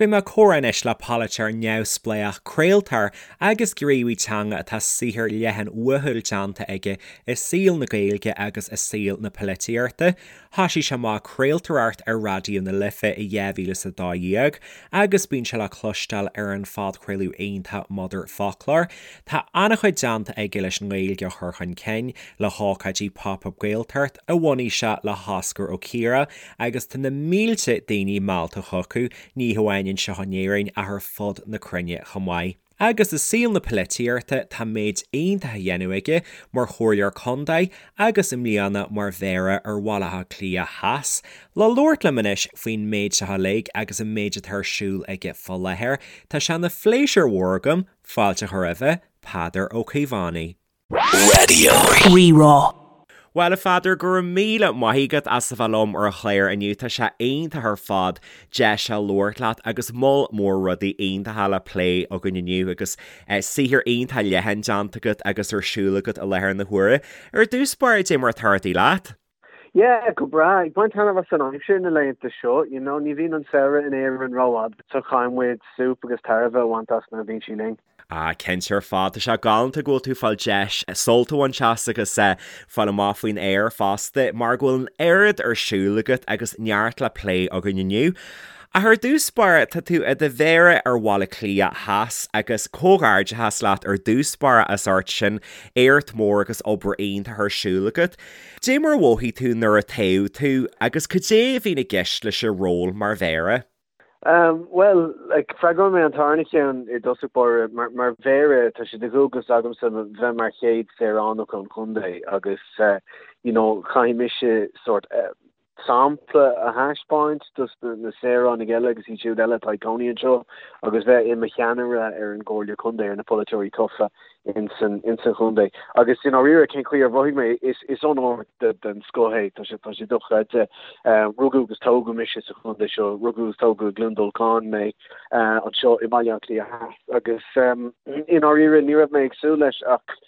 Beidh mé ag comhrá anois le polaiteoir neamhspleách, craoltóir agus gníomhaí teanga atá saothar leathan uathúil déanta aige i saol na Gaeilge agus i saol na polaitíochta. Thoisigh sé amach ag craoltóireacht ar Raidió na Life i 2012 agus bíonn sé le cloisteáil ar an phodchraoladh iontach Motherfoclóir. Tá an-chuid déanta aige leis an nGaeilge a chur chun cinn, le hócáidí Pop Up Gaeltacht a bhunaigh sé le hOscar Ó Ciardha agus tá na mílte daoine meallta chucu, ní hamháin anseo in Éirinn ach ar fud na cruinne chomh maith. Agus i saol na polaitíochta tá méid iontach á dhéanamh aige mar chomhairleoir contae agus i mbliana mar Mhéara ar Bhaile Átha Cliath Theas. Le labhairt liom anois faoin méid seo uilig agus an méid atá ar siúl aige fá láthair, tá sé ina phléisiúr mhór agam fáilte a chur roimhe, Peadar Ó Caomhánaigh. Raidió Rí-Rá. Bhuel, a Pheadair, go raibh míle maith agat as a bheith liom ar an chlár inniu. Tá sé iontach ar fad deis a labhairt leat agus moll mór rudaí iontacha le plé againn inniu agus saothar iontach leathan déanta agat agus ar siúl agat i láthair na huaire. Ar dtús báire, dé mar atá rudaí leat? Yeah, go breá. Ag baint taitneamh as an aimsir na laethanta seo, you know, ní bhíonn an samhradh in Éirinn rófhada, so caithfidh muid súp agus tairbhe a bhaint as nuair a bhíonn sí linn. Ah, cinnte ar fad. Tá sé galánta go bhfuil tú ag fáil deis sult a bhaint as agus fáil amach faoin aer fosta, mar go bhfuil an oiread ar siúl agat agus neart le plé againn inniu. Ach ar dtús báire, tá tú i do Mhéara ar Bhaile Átha Cliath Theas agus comhghairdeachas leat ar dtús báire as ucht sin, éacht mór agus obair iontach ar siúl agat. Dé mar a mhothaigh tú nuair a toghadh tú agus cad é a bhíonn i gceist leis an ról mar Mhéara? Bhuel, like, freagróidh mé an tarna ceann i dtosach báire. Mar, mar Mhéara, tá sé de dhualgas agamsa bheith mar chéad saoránach an chontae agus, you know, caithfidh mise sórt, sampla a thaispeáint dos na saoránaigh eile agus iad siúd eile atá ag cónaí anseo agus bheith i mo cheannaire ar an gComhairle Contae, ar na polaiteoirí tofa ins an chontae. Agus i ndáiríre, cén chaoi ar mhothaigh mé? Is is onóir den scoth é, tá sé tá sé dochreidte. Rugadh agus tógadh mise sa chontae seo, rugadh agus tógadh i gCluain Dolcáin mé anseo i mBaile Átha Cliath Theas agus i ndáiríre ní raibh mé ag súil leis ach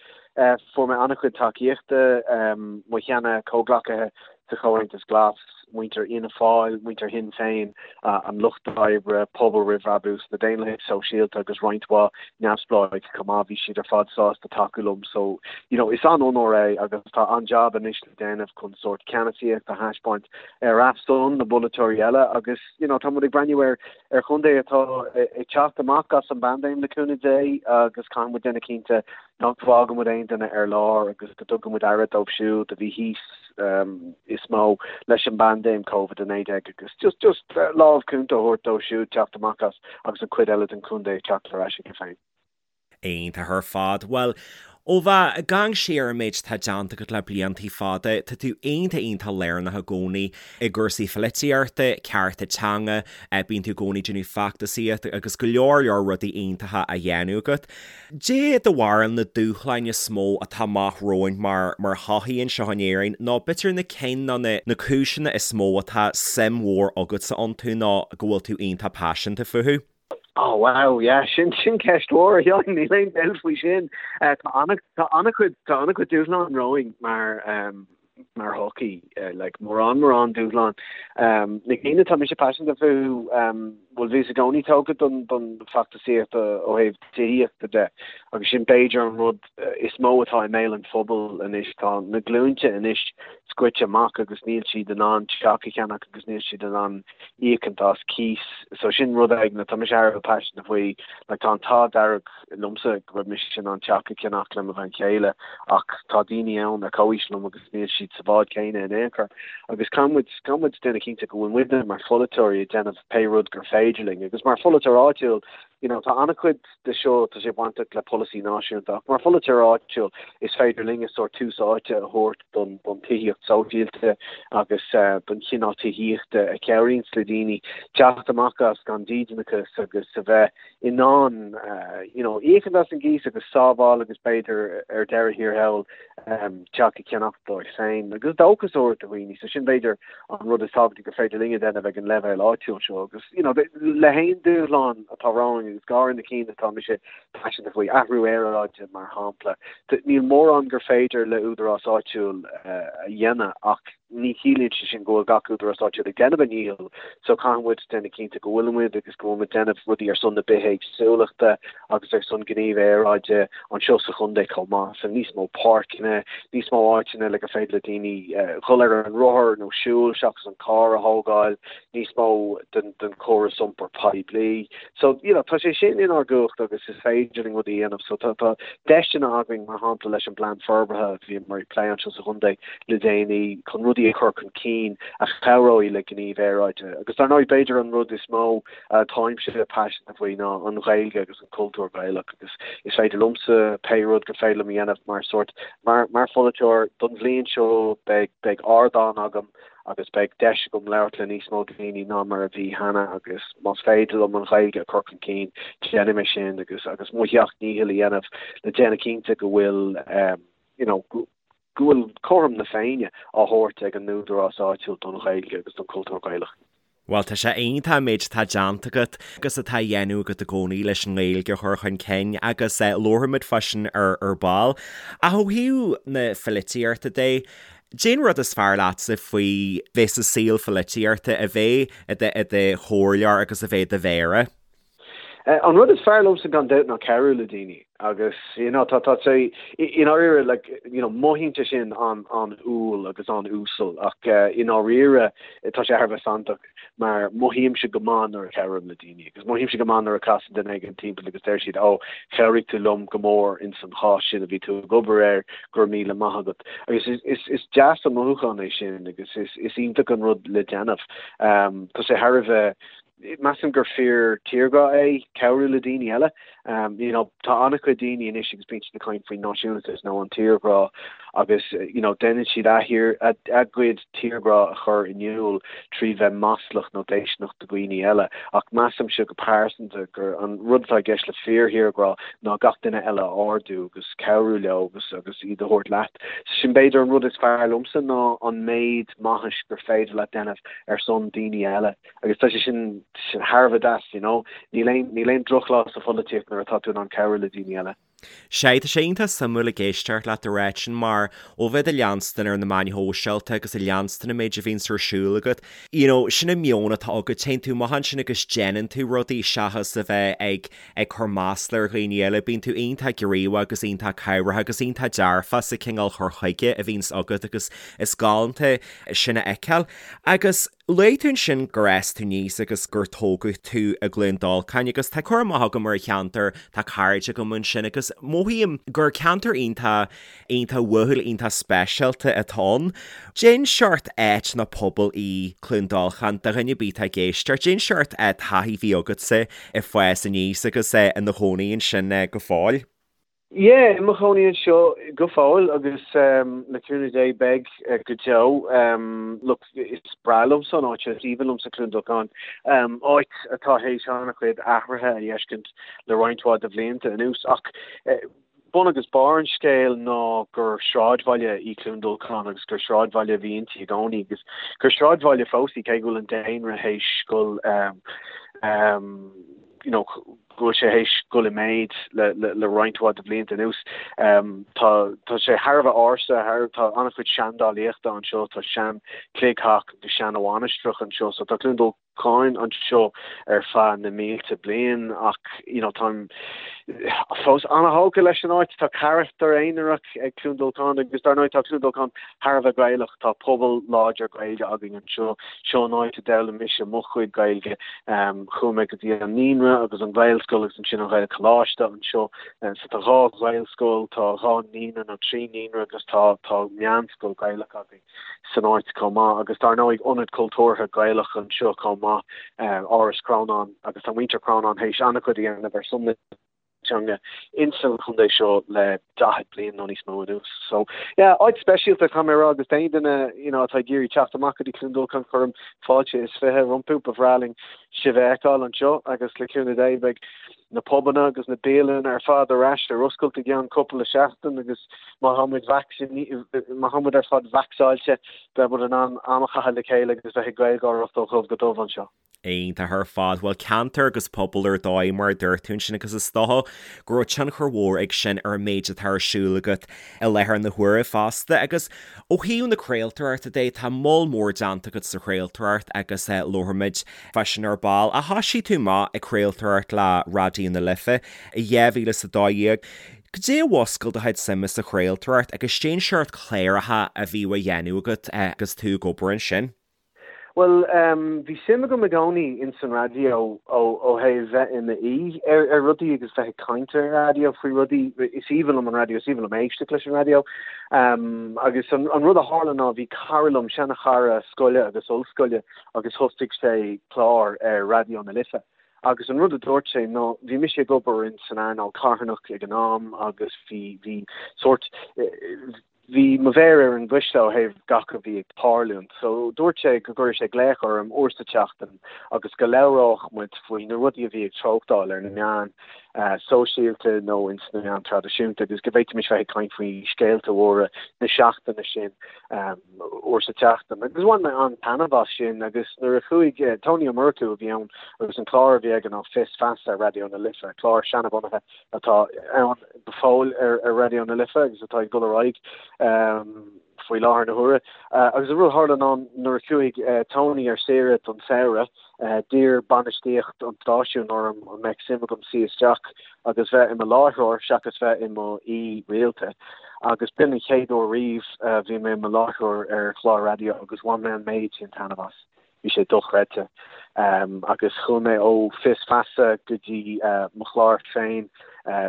fuair mé an-chuid tacaíochta, mo sheana comhghleacaithe sa Chomhaontas Glas, muintir Fhianna Fáil, muintir Shinn Féin, an Lucht Oibre, Pobal Roimh Bhrabús, na Daonlathaigh Sóisialta agus roinnt mhaith neamhspleáigh chomh maith, bhí siad ar fad sásta tacú liom. So, you know, is an-onóir é agus tá an-jab anois le déanamh chun sórt ceannasaíocht a thaispeáint ar a son na bpolaiteoirí eile agus, you know, tá muid ag breathnú ar ar chontae atá ag teacht amach as an bpaindéim le cúnamh Dé agus caithfidh muid déanamh cinnte nach bhfágann muid aon duine ar lár agus go dtugann muid aire dóibh siúd a bhí thíos is mó leis an bpaindéim Covid-19 agus just just lámh cúnta a thabhairt dóibh siúd teacht amach as agus an chuid eile den chontae ag teacht ar ais chuige féin. Iontach ar fad. Bhuel, ó bheith ag amharc siar ar an méid atá déanta agat le bliantaí fada, tá tú iontach iontach lárnach i gcónaí i gcúrsaí pholaitíochta, cearta teanga, bíonn tú i gcónaí ag déanamh feachtasaíocht agus go leor leor rudaí iontacha á dhéanamh agat. Dé do bharúil na dúshláin is mó atá amach romhainn mar mar shochaí anseo in Éirinn nó b'fhéidir na cinn nó na na cúiseanna is mó atá suim mhór agatsa iontu nó go bhfuil tú iontach paiseanta fúthu? Oh wow, yeah, sin sin ceist mhór, a Sheáin, níl aon dabht faoi sin. Tá ana tá ana-chuid tá ana-chuid dúshlán romhainn mar mar shochaí, like mórán mórán dúshlán. Na cinn atá mise paiseanta fúthu, bhuel bhíos i gcónaí tógtha don don feachtasaíocht ó thaobh tithíochta de agus sin b'fhéidir an rud is mó atá i mbéal an phobail anois. Tá na glúinte anois scoite amach agus níl siad in ann teach a cheannach agus níl siad in ann íocaint as cíos. So sin rud éigin atá mise thar a bheith paiseanta faoi. Like tá an t-ádh dearg liomsa go raibh mise in ann teach a cheannach le mo bhean chéile ach tá daoine ann ar comhaois liom agus níl siad sa bhád céanna in aon chor. Agus caithfidh muid, caithfidh muid déanamh cinnte go bhfuil muidne mar pholaiteoirí ag déanamh pé rud gur féidir linn. Agus mar pholaiteoir áitiúil, you know, tá an-chuid de seo, tá sé bainteach le polasaí náisiúnta ach mar pholaiteoir áitiúil is féidir linne sórt tús áite a thabhairt don don tithíocht sóisialta agus don chineál tithíochta a chabhraíonns le daoine teacht amach as gan dídeanachas agus a bheith in ann you know íocaint as an gcíos agus sábháil agus b'fhéidir ar deireadh thiar thall teach a cheannach dóibh féin agus dóchas a thabhairt do dhaoine. So sin b'fhéidir an rud is tábhachtaí gur féidir linn a dhéanamh ag an leibhéal áitiúil seo agus you know le haon dúshlán atá romhainn agus go háirithe na cinn atá mise paiseanta faoi, athrú aeráide mar shampla, níl mórán gur féidir le údarás áitiúil a dhéanamh ach. ní chiallaíonn sé sin go bhfuil gach údarás áitiúil ag déanamh a ndícheall so caithfidh muid déanamh cinnte go bhfuil muid agus go bhfuil muid déanamh rudaí ar son na bithéagsúlachta agus ar son gníomh aeráide anseo sa chontae chomh maith. So níos mó páirceanna, níos mó áiteanna le gur féidir le daoine dhul ar an rothar nó siúl seachas an carr a thógáil, níos mó den den chóras iompair poiblí. So, you know, tá sé sin inár gcumhacht agus is féidir linn rudaí a dhéanamh. So tá tá deiseanna againn, mar shampla leis an bplean forbartha a bhíomar ag plé anseo sa chontae le déanaí chun rudaí a chur chun cinn a chabhróidh le gníomh aeráide. Agus dar ndóigh b'fhéidir an rud is mó atáimse paiseanta faoi ná an Ghaeilge agus an cultúr Gaelach agus is féidir liomsa pé rud gur féidir liom a dhéanamh mar sórt mar mar pholaiteoir don bhliain seo beidh beidh ardán agam agus beidh deis agam labhairt le níos mó daoine ná mar a bhí cheana agus más féidir liom an Ghaeilge a chur chun cinn, déanfaidh mé sin agus agus mo sheacht ndícheall a dhéanamh le déanamh cinnte go bhfuil you know go bhfuil cothrom na Féinne á thabhairt ag an údarás áitiúil don Ghaeilge agus don chultúr Gaelach. Bhuel, tá sé iontach an méid atá déanta agat agus atá á dhéanamh agat i gcónaí leis an nGaeilge a chur chun cinn agus labharfaimid fá sin ar ar ball. Ach ó thaobh na pholaitíochta de, Cén rud is fearr leatsa faoi bheith sa saol pholaitíochta, a bheith i do i do chomhairleoir agus a bheith i do mhéara? An rud is fearr liomsa gan dabht ná cabhrú le daoine agus you know tá tá sé i ndáiríre like you know mothaíonn sé sin an an-umhal agus an-uasal ach i ndáiríre tá sé thar a bheith santach mar mothaímse go maith nuair a chabhraím le daoine agus mothaímse go maith nuair a casann duine éigin timpeall agus deir siad 'Ó, chabhraigh tú liom go mór ins an chás sin a bhí tú ag obair air, go raibh míle maith agat. Agus is, is, is deas an mothúchán é sin agus is, is iontach an rud le déanamh. Tá sé thar a bheith, measaim gur fíor tírghrá é cabhrú le daoine eile. You know, tá an-chuid daoine anois agus bíonn siad ag caint faoin náisiúnachas nó an tírghrá agus you know, déanann siad a thír, a, a gcuid tírghrá a chur in iúl trí bheith maslach nó déistineach do dhaoine eile. Ach measaimse go pearsanta gur an rud atá i gceist le fíor-thírghrá ná gach duine eile a ardú agus cabhrú leo agus agus iad a thabhairt leat. So sin b'fhéidir an rud is fearr liomsa ná an méid maithis gur féidir leat déanamh ar son daoine eile. Agus tá sé sin thar a bheith deas, you know. Níl aon, níl aon drochlá sa pholaitíocht nuair atá tú in ann cabhrú le daoine eile. Sea, tá sé iontach suimiúil ag éisteacht leat ag ráit sin mar ó bheith ag leanstan ar na meáin shóisialta agus ag leanstan an méid a bhíonns ar siúl agat, you know, sin an meon atá agat, téann tú amach ansin agus déanann tú rudaí seachas a bheith ag, ag cur masla ar dhaoine eile, bíonn tú iontach gníomhach agus iontach cabhrach agus iontach dearfach sa cineál chur chuige a bhíonns agat agus is galánta sin a fheiceáil. Agus. Luaigh tú ansin gur fhás tú aníos agus gur tógadh tú i gCluain Dolcáin agus tá cur amach agam ar an cheantar, tá cairde agam ansin agus mothaím gur ceantar iontach, iontach uathúil, iontach speisialta atá ann. Cén seort áit nó pobal í Cluain Dolcáin do dhuine ar bith atá ag éisteacht? Cén seort taithí a bhí agatsa ag fás aníos agus i do chónaí ansin go fóill? Yeah, i mo chónaí anseo go fóill agus le cúnamh Dé beidh go deo. Look, is breá liomsa an áit seo, is aoibhinn liomsa Cluain Dolcáin. Áit atá théis an-chuid athruithe a fheiscint le roinnt mhaith de bhlianta anuas ach bun agus barr an scéil ná gur sráidbhaile í Cluain Dolcáin agus gur sráidbhaile a bhí inti i gcónaí agus gur sráidbhaile fós í cé go bhfuil an daonra théis dul you know, go bhfuil sé théis dul i méid le, le, le roinnt mhaith de bhlianta anuas. Tá, tá sé thar a bheith ársa, thar, tá an-chuid seandálaíochta anseo, tá sean chloigtheach agus sean mhainistreach anseo, so tá Cluain Dolcáin anseo ar feadh na mílte bliain ach, you know, táim fós an-thógtha leis an áit, tá carachtar aonarach ag Cluain Dolcáin agus dar ndóigh tá Cluain Dolcáin thar a bheith Gaelach, tá pobal láidir Gaeilge againn anseo, seo an áit a d'fhoghlaim mise mo chuid Gaeilge. Chuaigh mé go dtí an naíonra agus an Ghaelscoil agus ansin an Ghaelcholáiste anseo. So tá dhá Ghaelscoil, tá dhá naíonra nó trí naíonra agus tá tá meánscoil Gaelach againn san áit chomh maith. Agus dar ndóigh ionad cultúrtha Gaelach anseo chomh maith, Áras Chrónáin agus tá muintir Chrónáin théis an-chuid a dhéanamh ar son na teanga insan chontae seo le 40 bliain nó níos mó anuas. So yeah, áit speisialta caithfidh mé a rá agus d'aon duine you know, atá ag iarraidh teacht amach go dtí Cluain Dolcáin cuirim fáilte is 20 rompu, ba bhreá linn sibh a fheiceáil anseo agus le cúnamh Dé beidh. na pubanna agus na bialanna ar fad ar ais ar oscailt i gceann cúpla seachtain agus má tá muid má tá muid ar fad vacsaíte beidh muid in ann am a chaitheamh le chéile agus bheith ag Gaelgáireacht ó dhubh go dubh anseo. Iontach ar fad. Bhuel, ceantar agus pobal ar dóigh, mar a dúirt tú ansin, agus is dócha go raibh tionchar mhór ag sin ar an méid atá ar siúl agat i láthair na huaire fosta. Agus ó thaobh na craoltóireachta de, tá moll mór déanta agat sa chraoltóireacht agus labharfaimid fá sin ar ball. Ach thoisigh tú amach ag craoltóireacht le Raidió na Life i 2012. Goidé a mhúscail do chuid suime sa chraoltóireacht agus cén seort cláracha a bhíodh á dhéanamh agat agus tú ag obair ansin? Bhuel, bhí suim agam i gcónaí ins an raidió ó thaobh bheith i m'aoi ar rudaí agus bheith ag caint ar an raidió faoi rudaí. Is aoibhinn liom an raidió, is aoibhinn liom éisteacht leis an raidió. Agus an rud a tharla ná bhí cara liom, seana-chara scoile agus ollscoile, agus thosaigh sé clár ar Raidió na Life. Agus an rud a dúirt sé ná bhí mise ag obair ins an earnáil carthanach ag an am agus bhí, bhí sórt, Bhí mo mhéar ar an gcuisle ó thaobh gach a bhí ag tarlúint, so dúirt sé go gcuireadh sé glaoch orm uair sa tseachtain agus go labhródh muid faoi na rudaí a bhí ag treochtáil ar na meáin sóisialta nó ins na meáin traidisiúnta agus go bhféadfaimis bheith ag caint faoi scéalta mhóra na seachtaine sin uair sa tseachtain. Agus bhain mé an-taitneamh as sin agus nuair a chuaigh Tony Ó Murchú a bhí ann agus an clár a bhí aige ná Fios Feasa ar Raidió na Life, clár seanabhunaithe atá ann go fóill ar Raidió na Life agus atá ag dul ar aghaidh faoi láthair na huaire. Agus an rud a tharla ná nuair a chuaigh Tony ar saoire don samhradh, d'iarr bainistíocht an stáisiúin orm an mbeadh suim agam suí isteach agus bheith i mo láithreoir seachas bheith i mo aoi rialta. Agus b'in an chéad uair riamh a bhí mé i mo láithreoir ar chlár raidió agus bhain mé an méid sin taitneamh as. Bhí sé dochreidte. Agus chuaigh mé ó Fios Feasa go dtí mo chlár féin,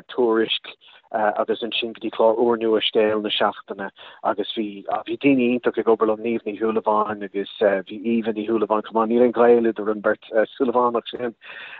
Tuairisc, agus ansin go dtí clár úrnua Scéal na Seachtaine agus bhí, bhí daoine iontach ag obair liom, Niamh Ní Shúilleabháin agus bhí Aoibhe Ní Shúilleabháin chomh maith, níl aon ghaol idir an bheirt Súilleabhánach sin.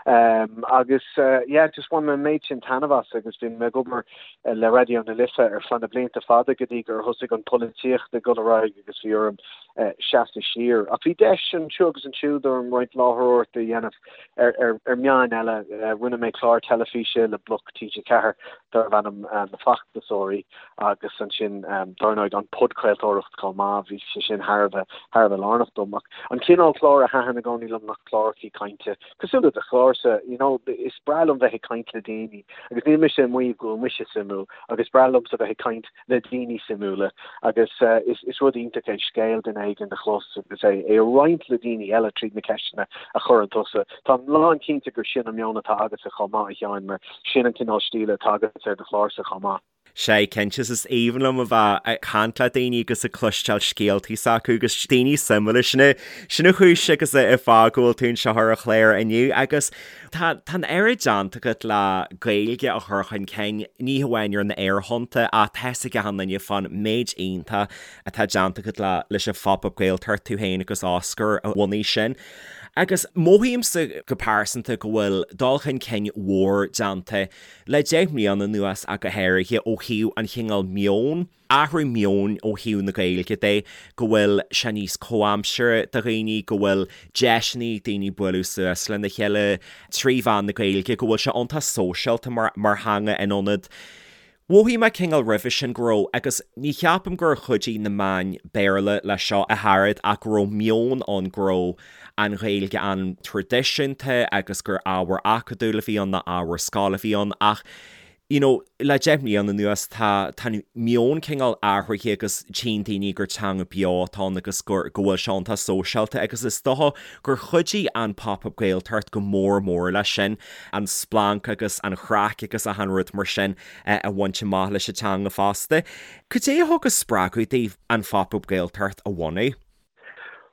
Agus yeah, just bhain mé an méid sin taitneamh as agus bhí mé ag obair le Raidió na Life ar feadh na blianta fada go dtí gur thosaigh an pholaitíocht ag dul ar aghaidh agus bhí orm seasamh siar. Ach bhí deis anseo agus ansiúd orm roinnt láithreoireachta a dhéanamh ar meáin eile. Rinne mé clár teilifíse le Bloc TG4 darbh ainm Na Feachtasóirí agus ansin dar ndóigh an podchraoltóireacht chomh maith, bhí sé sin thar a bheith thar a bheith lárnach dom. Ach an cineál clár a thaitin i gcónaí liom ná clárachaí cainte cosúil le do chlársa, you know, is breá liom bheith ag caint le daoine agus níl mise ag maíomh go bhfuil mise suimiúil ach is breá liomsa bheith ag caint le daoine suimiúla agus is rud iontach é scéal duine éigin a chlos agus é a roinnt le daoine eile tríd na ceisteanna a chuireann tusa. Táim lán cinnte gur sin an meon atá agatsa chomh maith, a Sheáin, mar sin an cineál stíle atá agat ar do chlársa chomh maith. Sea, cinnte, is aoibhinn liom a bheith ag caint le daoine agus ag cloisteáil scéaltaí s'acu agus daoine suimiúla. Sin é, sin an chúis agus an fáth go bhfuil tú anseo ar an chlár inniu agus Tá an oiread déanta agat le Gaeilge a chur chun cinn, ní hamháin ar na aerthonnta ach tá fhios ag achan duine fán méid iontach atá déanta agat le leis an Phop Up Gaeltacht, tú féin agus Oscar a bhunaigh sin. Agus mothaímse go pearsanta go bhfuil dul chun cinn mhór déanta le 10 mbliana anuas ach go háirithe ó thaobh an chineál meoin, athrú meoin ó thaobh na Gaeilge de, go bhfuil sé níos comhaimseartha do dhaoine, go bhfuil deiseanna ag daoine bualadh suas lena chéile trí mheán na Gaeilge, go bhfuil sé iontach sóisialta mar mar theanga in ionad Mhothaigh mé cineál roimhe sin go raibh, agus ní cheapaim gur chuidigh na meáin Béarla leis seo ach oiread, ach go raibh meon ann go raibh an Ghaeilge an-traidisiúnta agus gur ábhar acadúil a bhí ann, ná ábhar scoile a bhí ann ach you know, le 10 mbliana anuas tá, tá an meon cineál athraithe agus tchíonn daoine gur teanga beo atá ann agus gur, go bhfuil sé iontach sóisialta agus is dócha gur chuidigh an Pop Up Gaeltacht go mór mór leis sin, an splanc agus an chraic agus achan rud mar sin a bhaint amach leis an teanga fosta. Cad é a thug an spreagadh daoibh an Phop Up Gaeltacht a bhunú?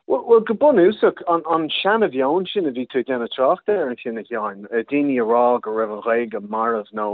Bhuel, go bunúsach, an seana-mheon sin a bhí tú ag déanamh trácht air ansin, a Sheáin, daoine a rá go raibh an Ghaeilge marbh nó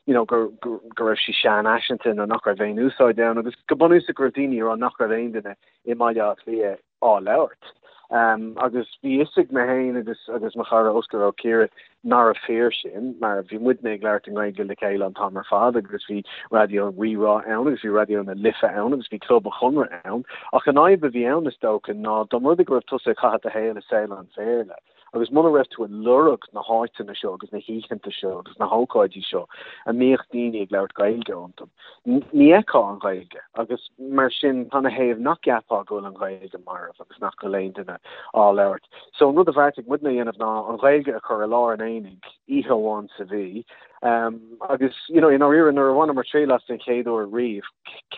you know go raibh sí seanfhaiseanta nó nach raibh aon úsáid ann agus go bunúsach go raibh daoine a rá nach raibh aon duine i mBaile Átha Cliath á labhairt. Agus bhí fhios ag mé féin agus agus mo chara Oscar Ó Ciaraidh nárbh fíor sin, mar bhí muidne ag labhairt i nGaeilge le chéile an t-am ar fad agus bhí Raidió Rí-Rá ann agus bhí Raidió na Life ann agus bhí Club an Chonradh ann. Ach an fhadhb a bhí ann, is dócha, ná dá mba rud é go raibh tusa ag caitheamh do shaoil i saol an Bhéarla. Agus muna raibh tú ag lorg na háiteanna seo agus na hoícheanta seo agus na hócáidí seo a mbíodh daoine ag labhairt Gaeilge iontu, ní fheicfeá an Ghaeilge. Agus mar sin, canathaobh nach gceapfá go bhfuil an Ghaeilge marbh agus nach bhfuil aon duine á labhairt? So an rud a bheartaigh muidne a dhéanamh ná an Ghaeilge a chur i lár an aonaigh oíche amháin sa mhí. Agus, you know, i ndáiríre, nuair a bhaineamar triail as den chéad uair riamh,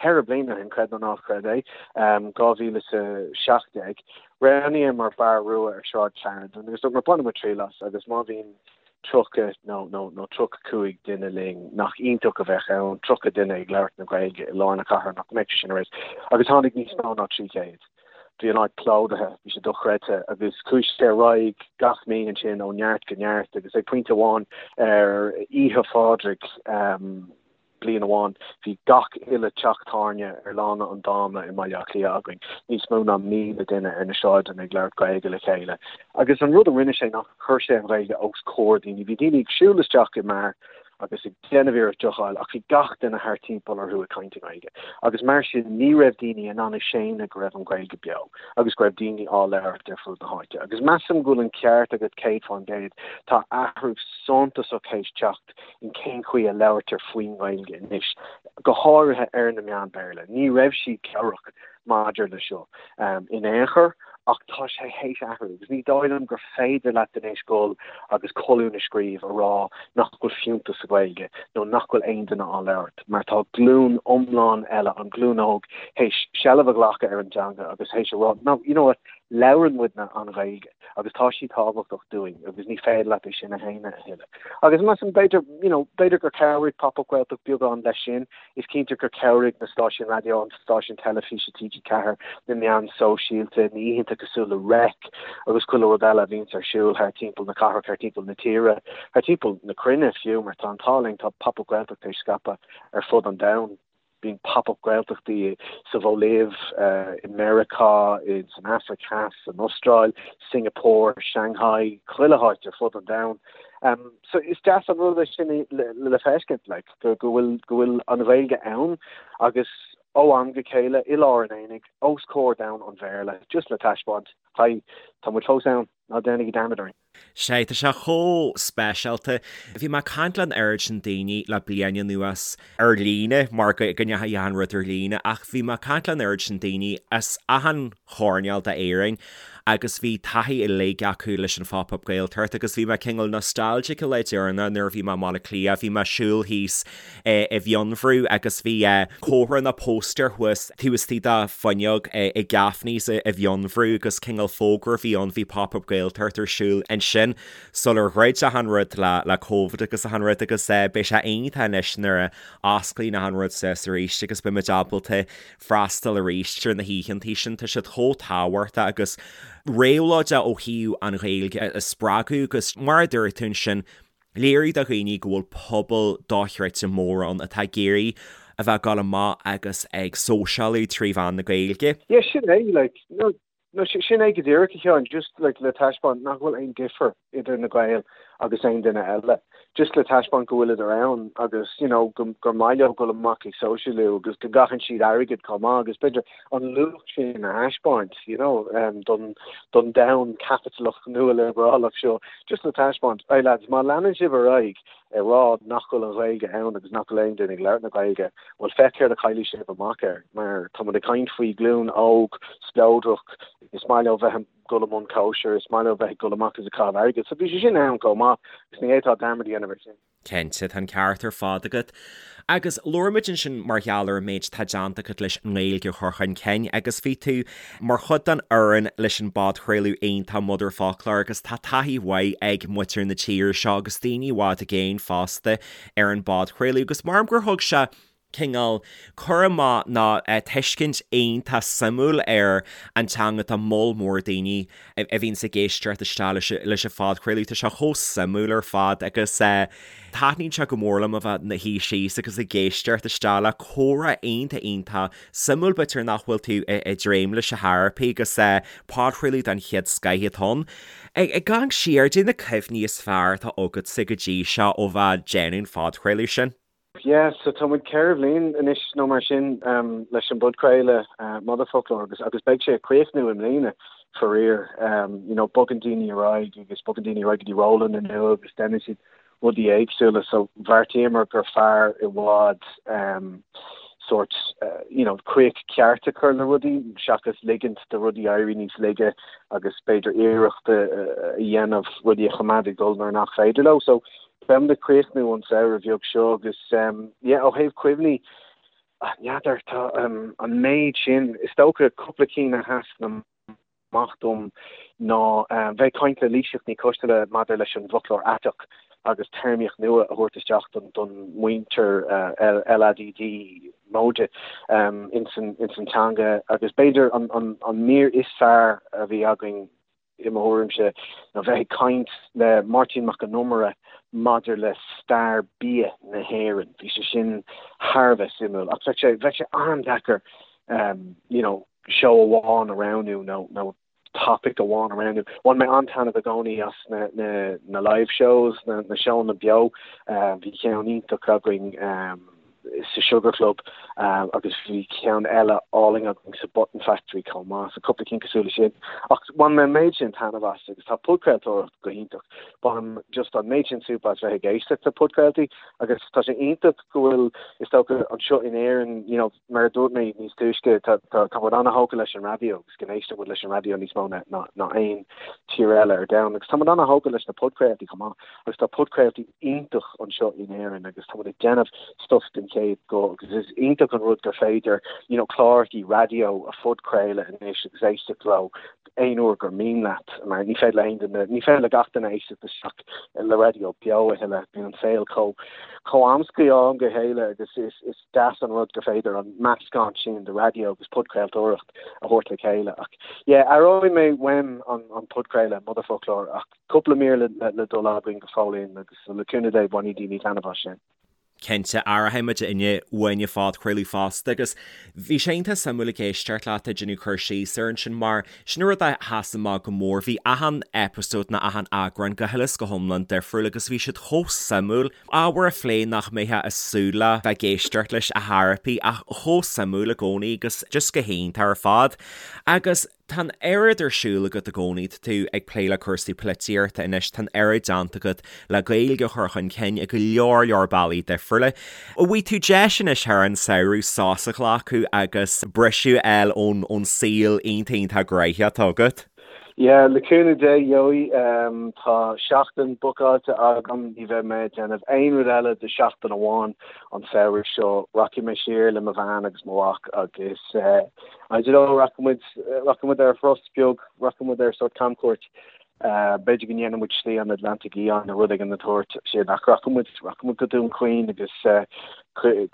4 bliana ó shin, creid nó ná creid é, 2017, Roghnaíomar Beár Rua ar Shráid Clarendon agus dúramar bainfidh muid triail as agus má bhíonn 30 nó nó nó 35 duine linn, nach iontach a bheadh ann, 30 duine ag labhairt na Gaeilge i lár na cathrach, nach mbeadh sé sin ar fheabhas? Agus tháinig níos mó ná 300. Bhí an áit plódaithe, bhí sé dochreidte agus chuaigh sé ar aghaidh gach mí ansin ó neart go neart agus ag pointe amháin ar Oíche Phádraig, Bliain amháin, bhí gach uile teach tábhairne ar Lána an Dáma i mBaile Átha Cliath againn, níos mó ná 1,000 duine ar na sráideanna ag labhairt Gaeilge le chéile. Agus an rud a rinne sé ná chuir sé an Ghaeilge os comhair daoine. Bhí daoine ag siúl isteach i mbeár agus ag déanamh iarracht deoch a fháil ach bhí gach duine thart timpeall orthu ag caint i nGaeilge. Agus mar sin ní raibh daoine in ann a shéanadh go raibh an Ghaeilge beo agus go raibh daoine á labhairt ar fud na háite. Agus measaim go bhfuil an ceart agat 100%, tá athrú suntasach théis teacht in cén chaoi a labhartar faoin nGaeilge anois, go háirithe ar na meáin Bhéarla. Ní raibh siad cabhrach maidir le seo in aon chor ach tá sé théis athrú agus ní dóigh liom gur féidir leat anois dul agus colún a scríobh a rá nach bhfuil fiúntas sa Ghaeilge nó nach bhfuil aon duine á labhairt mar tá glúin iomlán eile, an ghlúin óg, théis seilbh a ghlacadh ar an dteanga agus théis a rá no, you know what, labhrann muidne an Ghaeilge agus tá sí tábhachtach dúinn agus ní féidir leat é sin a shéanadh a thuilleadh. Agus measaim b'fhéidir, you know, b'fhéidir gur chabhraigh Pop Up Gaeltacht beagán leis sin. Is cinnte gur chabhraigh na stáisiúin raidió, an stáisiún teilifíse TG4, na meáin sóisialta, na oícheanta cosúil le Reic agus chuile rud eile a bhíonns ar siúl thar timpeall na cathrach, thar timpeall na tíre, thar timpeall na cruinne fiú, mar tá an t-ádh linn, tá Pop Up Gaeltacht théis scaipeadh ar fud an domhain. Bíonn Pop Up Gaeltachtaí sa Bholaiv, i Meiriceá, san Afraic Theas, san Astráil, Singapore, Shanghai, chuile háit ar fud an domhain. So is deas an rud é sin le feiscint, like, go bhfuil, go bhfuil an Ghaeilge ann agus ó am go chéile i lár an aonaigh, os comhair domhan an Bhéarla, just le taispeáint, hi, tá muid fós ann, ná déanaigí dearmad orainn. Sea, tá sé chomh speisialta. Bhí mé ag caint le an oiread sin daoine le bliain anuas ar líne, mar go ndeachaigh achan rud ar líne, ach bhí mé ag caint le an oiread sin daoine as achan choirnéal d'Éirinn agus bhí taithí uilig acu leis an Phop Up Gaeltacht agus bhí mé cineál nostalgic an lá deireanach nuair a bhí mé i mBaile Átha Cliath, bhí mé ag siúl thíos i bhFionnbhrú agus bhí comhartha nó póstaer thuas taobh istigh de fuinneog i Gaffney's i bhFionnbhrú agus cineál fógra a bhí ann, bhí Pop Up Gaeltacht ar siúl ansin sular dhruid achan rud le Covid agus achan rud agus beidh sé iontach anois nuair a osclaíonn achan rud suas arís agus beidh muid ábalta freastal arís ar na hoícheantaí sin, tá siad chomh tábhachtach agus réabhlóideach ó thaobh an Ghaeilge a spreagadh agus mar a dúirt tú ansin, Léiriú do dhaoine go bhfuil pobal dochreidte mór ann atá ag iarraidh a bheith ag dul amach agus ag sóisialú trí mheán na Gaeilge. Yeah, sin é, like, no, no, sin é go díreach, a Sheáin, just, like, le taispeáint nach bhfuil aon difear idir na Gaeil agus aon duine eile. Just le taispeáint go bhfuileadar ann agus, you know, go, gur maith leo dul amach ag sóisialú agus go gcaitheann siad airgead chomh maith agus b'fhéidir an luach sin a thaispeáint, you know, don, don domhan caipitleach nualiobrálach seo, just le taispeáint, hey lads, má leanann sibh ar aghaidh ag rá nach bhfuil an Ghaeilge ann agus nach bhfuil aon duine ag labhairt na Gaeilge, bhuel féach céard a chaillfidh sibh amach air, mar tá muid ag caint faoi ghlúin óg, spleodrach, is maith leo bheith ag dul i mbun cóisir, is maith leo bheith ag dul amach agus ag caitheamh airgid, so bhí sé sin ann chomh maith agus ní fhéadfá dearmad a dhéanamh air sin. Cinnte, tá an ceart ar fad agat. Agus labhair muid ansin mar gheall ar an méid atá déanta agat leis an nGaeilge a chur chun cinn agus bhí tú mar chuid den fhoireann leis an bpodchraoladh iontach Motherfoclóir agus tá taithí mhaith ag muintir na tíre seo agus daoine i bhfad i gcéin fosta ar an bpodchraoladh agus maram gur thug sé cineál cur amach nó tuiscint iontach suimiúil ar an teanga do moll mór daoine a bhíonns ag éisteacht isteach leis an phodchraoladh. Tá sé chomh suimiúil ar fad agus taitníonn sé go mór liom a bheith 'mo shuí síos agus ag éisteacht isteach le comhrá iontach iontach suimiúil b'fhéidir nach bhfuil tú ag dréim leis ar chor ar bith agus podchraoladh den chéad scoith atá ann. Ag amharc siar, caidé na cuimhní is fearr atá agatsa go dtí seo ó bheith ag déanamh an phodchraoladh sin. Yeah, so tá muid 4 bhliain anois nó mar sin leis an bpodchraoladh Motherfoclóir agus agus beidh sé ag críochnú i mbliana faraor. You know, bogann daoine ar aghaidh agus bogann daoine ar aghaidh go dtí rólanna nua agus déanann siad rudaí éagsúla so bheartaíomar gur fearr i bhfad sórt you know críoch ceart a chur le rudaí seachas ligint do rudaí éirí níos laige agus b'fhéidir iarracht a dhéanamh rudaí a choimeád ag dul nuair nach féidir leo. So beimid ag críochnú an samhradh bheag seo agus yeah ó thaobh cuimhní n'fheadar tá an méid sin is dócha cúpla cinn a sheasann amach dom ná bheith ag caint le Laoighseach Ní Choisteala maidir leis an bhfoclóir aiteach agus téarmaíocht nua a thabhairt isteach don mhuintir LADD móide ins an teanga agus b'fhéidir an mír is fearr a bhí againn i mo thuairimse, ná bheith ag caint le Máirtín Mac Con Iomaire maidir le stair bia na hÉireann. Bhí sé sin thar a bheith suimiúil ach bheadh sé, bheadh sé an-deacair you know seó amháin a roghnú nó, nó topaic amháin a roghnú. Bhain mé an-taitneamh i gcónaí as na, na, na live shows, na, na seónna beo. Bhí ceann iontach againn sa Sugar Club agus bhí ceann eile álainn againn sa Button Factory chomh maith, so cúpla cinn cosúil leis sin. Ach bhain mé an méid sin taitneamh as agus tá podchraoltóireacht go hiontach. Bainim just an méid sin súp as bheith ag éisteacht le podchraoltaí agus tá sé iontach go bhfuil, is dócha, anseo in Éirinn, you know, mar a dúirt mé níos túisce, tá tá muid an-thógtha leis an raidió agus go n-éisteann muid leis an raidió níos mó ná ná aon tír eile ar domhan agus tá muid an-thógtha leis na podchraoltaí chomh maith agus tá podchraoltaí iontach anseo in Éirinn agus tá muid ag déanamh stuff den chéad scoth agus is iontach an rud gur féidir you know clárachaí raidió a phodchraoladh anois agus éisteacht leo aon uair gur mian leat mar ní féidir le haon duine ní féidir le gach duine éisteacht isteach le raidió beo a thuilleadh bíonn an saol chomh chomh amscaí ó am go chéile agus is is deas an rud gur féidir an meascán sin de raidió agus podchraoltóireacht a thabhairt le chéile ach yeah aireoidh mé uaim an an podchraoladh Motherfoclóir ach cúpla mír le le dul againn go fóillín agus le cúnamh Dé bainfidh daoine taitneamh as sin. Cinnte, aireoidh muidinne uainn an phodchraoladh fosta agus bhí sé iontach suimiúil ag éisteacht leat ag déanamh cur síos air ansin mar sin an rud a sheas amach go mór, bhí achan episode nó achan eagrán go huile is go hiomlán difriúil agus bhí siad chomh suimiúil, ábhar a phlé nach mbeifeá ag súil le bheith ag éisteacht leis ar chor ar bith ach chomh suimiúil i gcónaí agus just go hiontach ar fad. Agus Tá an oiread ar siúl agat i gcónaí, tá tú ag plé le cúrsaí polaitíochta anois, tá an oiread déanta agat le Gaeilge a chur chun cinn i go leor leor bealaí difriúla. An bhfaighidh tú deis anois thar an samhradh sos a ghlacadh agus briseadh a fháil ón ón saol iontach iontach gnoitheach atá agat? Yeah, le cúnamh Dé, gheobhaidh. Tá seachtain bookáilte agam, ní bheidh mé ag déanamh aon rud eile do sheachtain amháin an samhradh seo. Rachaidh mé siar le mo bhean agus mo mhac agus I don't know, rachaidh muid, rachaidh muid ar thuras beag, rachaidh muid ar sórt camchuairt. B'fhéidir go ndéanfaidh muid Slí an Atlantaigh Fhiáin nó rud éigin den tsórt sin ach rachaidh muid, rachaidh muid go Dún Chaoin agus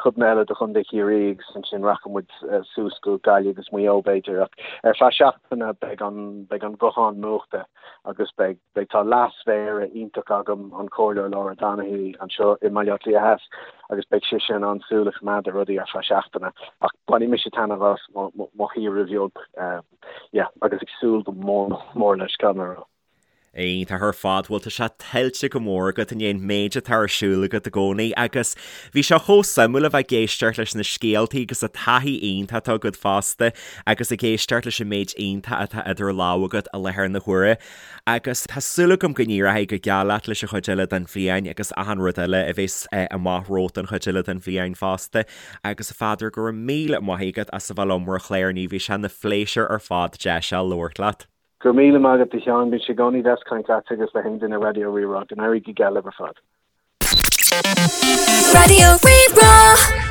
codanna eile de Chontae Chiarraí agus ansin rachaidh muid suas go Gaillimh agus Maigh Eo b'fhéidir ach ar feadh seachtaine beidh an, beidh an guthán múchta agus beidh, beidh, tá leas-mhéara iontach agam, an Comhairleoir Laura Donoghue anseo i mBaile Átha Cliath Theas agus beidh sise in ann súil a choimeád ar rudaí ar feadh seachtaine ach bainfidh mise taitneamh as mo, mo, mo shaoire bheag, yeah, agus ag súil go mór mór leis, caithfidh mé a rá. Iontach ar fad, bhuel tá sé tuillte go mór agat i ndiaidh an méid atá ar siúl agat i gcónaí agus bhí sé chomh suimiúil a bheith ag éisteacht leis na scéaltaí agus an taithí iontach atá agat fosta agus ag éisteacht leis an méid iontach atá idir lámha agat i láthair na huaire agus tá súil agam go n-éireoidh go geal leat leis an chuid eile den bhliain agus achan rud eile a bheas amach romhat don chuid eile den bhliain fosta agus a Pheadair go raibh míle maith agat as a bheith liom ar an chlár inniu, bhí sé ina phléisiúr ar fad deis a labhairt leat. Go raibh míle maith agat a Sheáin, bíonn sé i gcónaí deas caint leatsa agus le haon duine Raidió Rí-Rá. Go n-éirí go geal libh ar fad. Raidió Rí-Rá.